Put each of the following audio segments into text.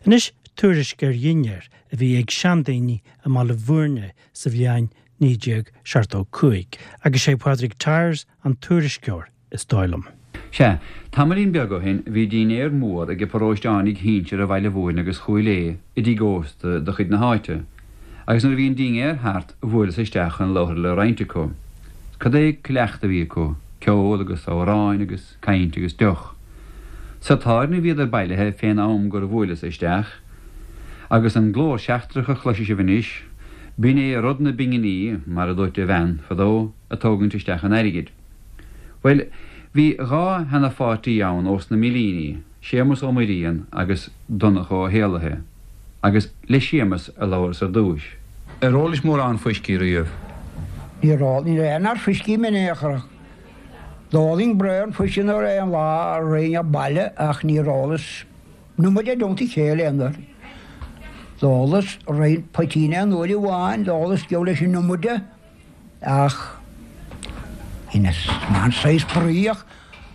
Anois tuairisc ar dhinnéar a bhí ag seandaoine i mBaile Bhúirne sa bhliain 1975, agus sé Pádraig Tyers an tuairisceoir, is dóigh liom. Sea, tamaillín beag ó shin bhí dinnéar mór ag paróisteánaigh shinsir Bhaile Bhúirne agus Chúil Aodha i dtigh ósta de chuid na háite, agus nuair a bhí an dinnéar thart bhuaileas isteach chun labhartha le roinnt acu. Cad é cleachtadh a bhí acu, ceol agus amhráin agus caint agus deoch. Sa tábhairne a bhíodar bailithe fén am gur bhuaileas isteach, agus an glór seachtrach a chloisfidh sibh anois, b'in é Rud na bPinginí, mar a dúirt a bhean fadó, ag tógaint isteach an airgid. Bhuel, bhí dha sheana-pháirtí ann ós na Millíní, Séamus Ó Muirrian agus Donncha Ó hÉallaithe, agus le Séamus a labhras ar dtúis. Ar ólais mórán fuiscí riamh? Níor ól, ní raibh aon fhear fuiscí in aon chor ach d'ólainn braon fuiscí nuair aon lá a raghainn a' baile ach níor ólas an iomad i dteannta a chéile aon uair. D'ólas roinnt poitín aon uair amháin, d'ólas geall leis an iomad de. Ach dheineas an saghas bruí ach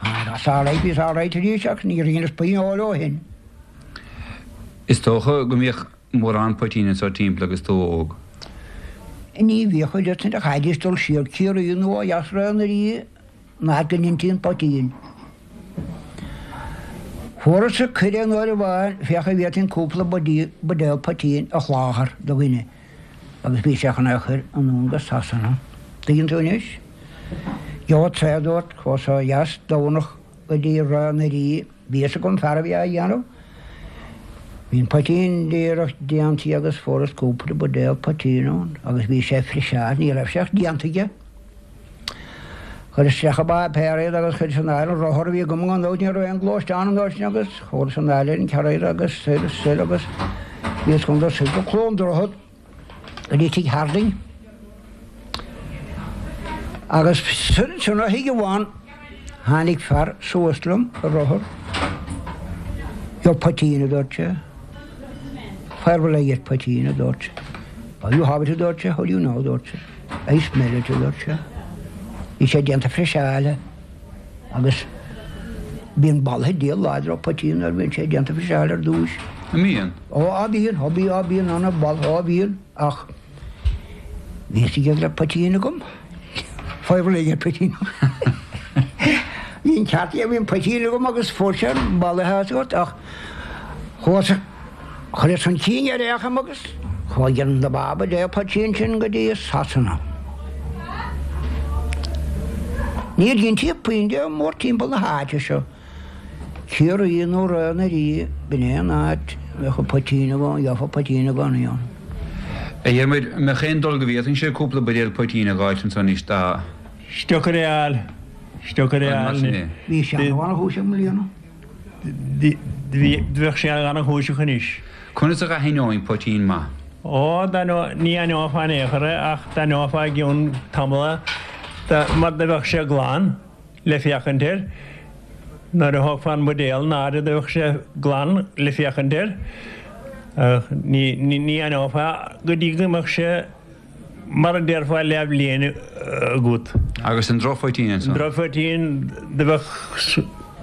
that's all right, bhíos all right arís ach níor dheineas puinn óil ó shin. Is dócha go mbíodh mórán poitín anso timpeall agus tú óg? Ní bhíodh oiread sin, chaithfidís dul siar Ciarraí nó ó dheas Ráth an Rí an áit go ndeintí an poitín. Fuarthas cuireadh aon uair amháin féach an bhféadfainn cúpla buidéal poitín a sholáthar do dhuine. Agus bhí sé chun é a chur anonn go Sasana. Tuigeann tú anois? Gheobhadsa é, a dúirt, chuas ó dheas Domhnach go dtí Ráth na Rí. Bhí fhios agam fear a bhí á dhéanamh. Bhí an poitín díreach déanta agus fuaireas cúpla buidéal poitín ann agus bhí sé friseáilte, ní raibh sé ach déanta aige. Chuireas isteach i bpáipéar iad agus chuireas anall an rothar a bhí agam gan dabht ní raibh aon ghluaisteán an uair sin agus chuaras anall ar an charr agus soir is soir agus bhíos chun dul soir go Cluain Droichead go dtí tigh Harding agus soir ansin ó thigh amháin tháinig fear suas liom ar rothar. Gheobhaidh poitín a dúirt sé. Where will I get poitín a dúirt sé. Oh you have it a dúirt sé, how do you know a dúirt sé. I smell it, a dúirt sé. Bhí sé déanta friseáilte agus bíonn boladh diabhal láidir ó poitín nuair a bhíonn sé déanta friseáilte ar dtúis. An mbíonn? Ó, á bíonn, ó bí, á bíonn ana bholadh, á bhíonn, ach bhí fhios aige go raibh poitín agam. Where will I get poitín. Bhí an ceart aige, bhí an poitín agam agus fuair sé an boladh as agat ach chuas Chuireas chun cinn ar fhéachaim agus chuaigh an dá bhuidéal poitín sin go dtí Sasana. Níor dheintí puinn de mórthimpeall na háite seo. Ciarraí nó Ráth na Rí, b'in é an áit a mbeadh an poitín i gcónaí, gheofá poitín i gcónaí ann. A Dhiarmuid, an mbeadh aon dul go bhféadfainnse cúpla buidéal poitín a dh'fháilt anso anois dá. Is deacair é a fháil. Is deacair é a fháil anois. Bhí seanamh an-chúiseach i mbliana. Bheadh sé an-chúiseach anois. Conas a dh'aithneoinn poitín maith? Ó, ní aithneofá in aon chor é ach d'aithneofá i gcionn tamaill é mar do bheadh sé glan le féachaint air. Nuair a thógfá an buidéal in airde do bheadh sé glan le féachaint air. Ach ní aithneofá go dtí go mbeadh sé Mar a déarfá leathbhliain agat. Agus an drochphoitín ansan? An drochphoitín, do bheadh,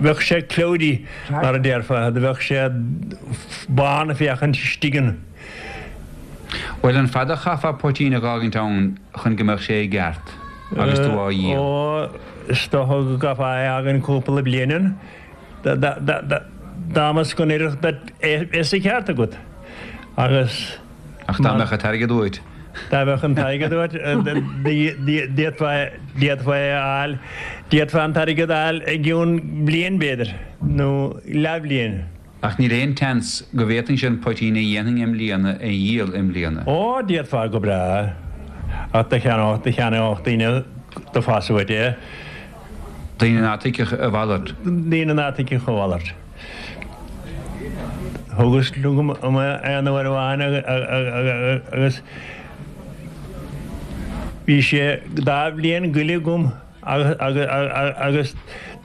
bheadh sé cloudy, mar a déarfá, do bheadh sé bán ag féachaint istigh ann. Bhuel, an fada a chaithfeá poitín a dh'fhágaint ann chun go mbeadh sé i gceart agus tú á dhíol? Ó, is dócha go gcaithfeá é a fhágaint cúpla bliain ann. Dá mba go n-oirfeadh duit é bheith sa cheart agat. Agus. Ach dá mbeadh an t-airgead uait. Dá mbeadh an t-airgead uait, d'fhéadfá é a fháil, d'fhéadfá an t-airgead a fháil i gcionn bliain b'fhéidir, nó leathbhliain. Ach níl aon tseans go bhféadfainnse an poitín a dhéanfainn i mbliana a dhíol i mbliana. Ó, d'fhéadfá go breá, ach do cheannódh, do cheannódh daoine do phas uait é. Daoine ná tuigfeadh a mhalairt. Daoine ná tuigfeadh a mhalairt. Thugas chugam aon uair amháin agus bhí sé dá bhliain goile agam agus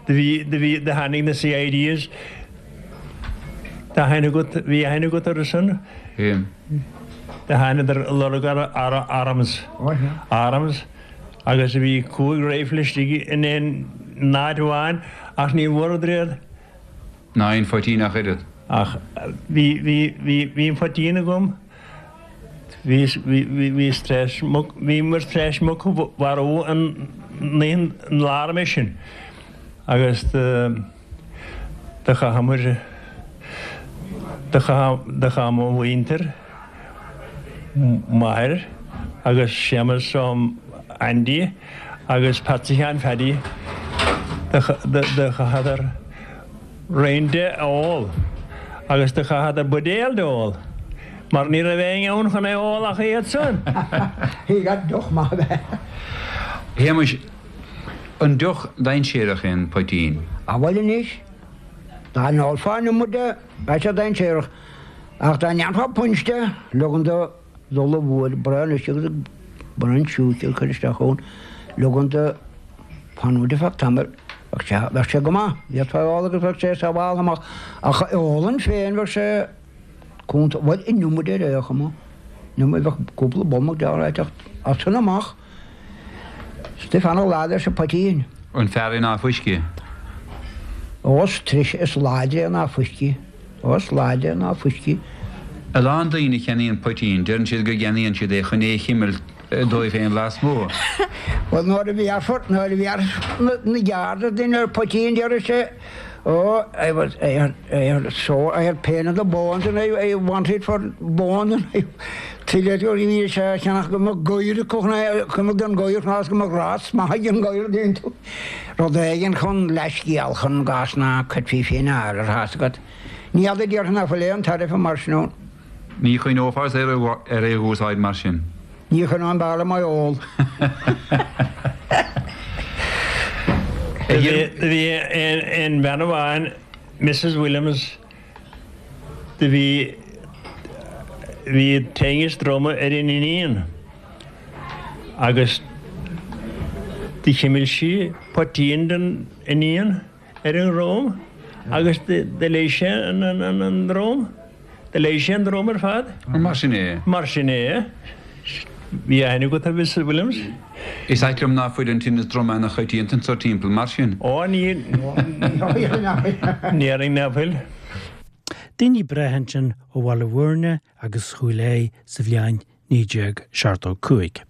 do bhí, do bhí, do tháinig na CIDs. Tá aithne agat, bhí aithne agat orthu san? Bhí. Do thánadar ag lorg arms, arms agus bhí chúig rifle istigh in aon áit amháin ach ní bhfuaireadar iad. Ná aon phoitín ach oiread. Ach bhí, bhí, bhí, bhí an poitín agam, bhí, bhí, bhí, bhíos tar éis muc, bhíomar tar éis muc a mharú an, an lá roimhe sin agus do, do chaitheamar, do chaith, do chaith mo mhuintir, m'athair agus Séamus Ó Aindí agus Patsy Sheáin Phaddy, do, do, do chaitheadar roinnt de a ól agus do chaitheadar buidéal de ól mar ní raibh éinne ann chun é ól ach iad san. He got deoch maith ab ea. Shéamuis, an deoch dainséarach é an poitín? A bhuel anois, dá n-ólfá an iomad de, bheadh sé dainséarach, ach dá ndéanfá punch de, leogan do dhul i bhfuair braon uisce agus braon siúcra a chur isteach ann, leogan do fanúint ar feadh tamaill, bheadh sé, bheadh sé go maith, d'fhéadfá é a ól agus bheadh sé sábháltha amach, ach a ólann féin bheadh sé cúnta, bhuel an iomad ar aon chuma, an iomad, bheadh cúpla bolmach deartha ag teacht as san amach. Is tú fanacht lá leis an poitín. An fearr é ná fuisce? Ó, is treise, is láidre é ná fuisce. Ó, is láidre é ná fuisce. A lán daoine a cheannaíonn poitín, deireann siad go gceannaíonn siad é chun é a chimilt dóibh féin lasmuigh. Bhuel, nuair a bhéarfar, nuair a bhéarfas na Garda duine ar poitín, déarfaidh sé, Oh, I was, I had, I had a sore, I had pain in the bones and I, I wanted for bones and I, tuilleadh bhí sé á cheannach go mbeadh goir acu chun é, go mbeadh an goir chun go mbeadh rás maith ag an goir déanta. Rud éigin chun leithscéal chun gás ná cuirfí féin ar ar thá's agat. Ní fheadar déarfainn nach bhfuil aon tairbhe mar sin ann. Ní chuimhneofá ar é a úsáid mar sin. Ní chuimhneoinn b'fhearr liom é a ól. Do bhí aon bhean amháin, Mrs Williams, do bhí, bhí tinneas droma ar an iníon agus do chimil sí poitín don iníon ar an dhrom agus do leigheas sé an drom. Do leigheas sé an drom ar fad. Mar sin é. Mar sin é. Bhí aithne agat ar Mrs Williams? Is ait liom ná fuil an tinneas droma ana choitianta anso timpeall mar sin. Ó ní déarfainn ná fuil. Daoine breátha ansin ó Bhaile Bhúirne agus Chúil Aodha sa bhliain 1975.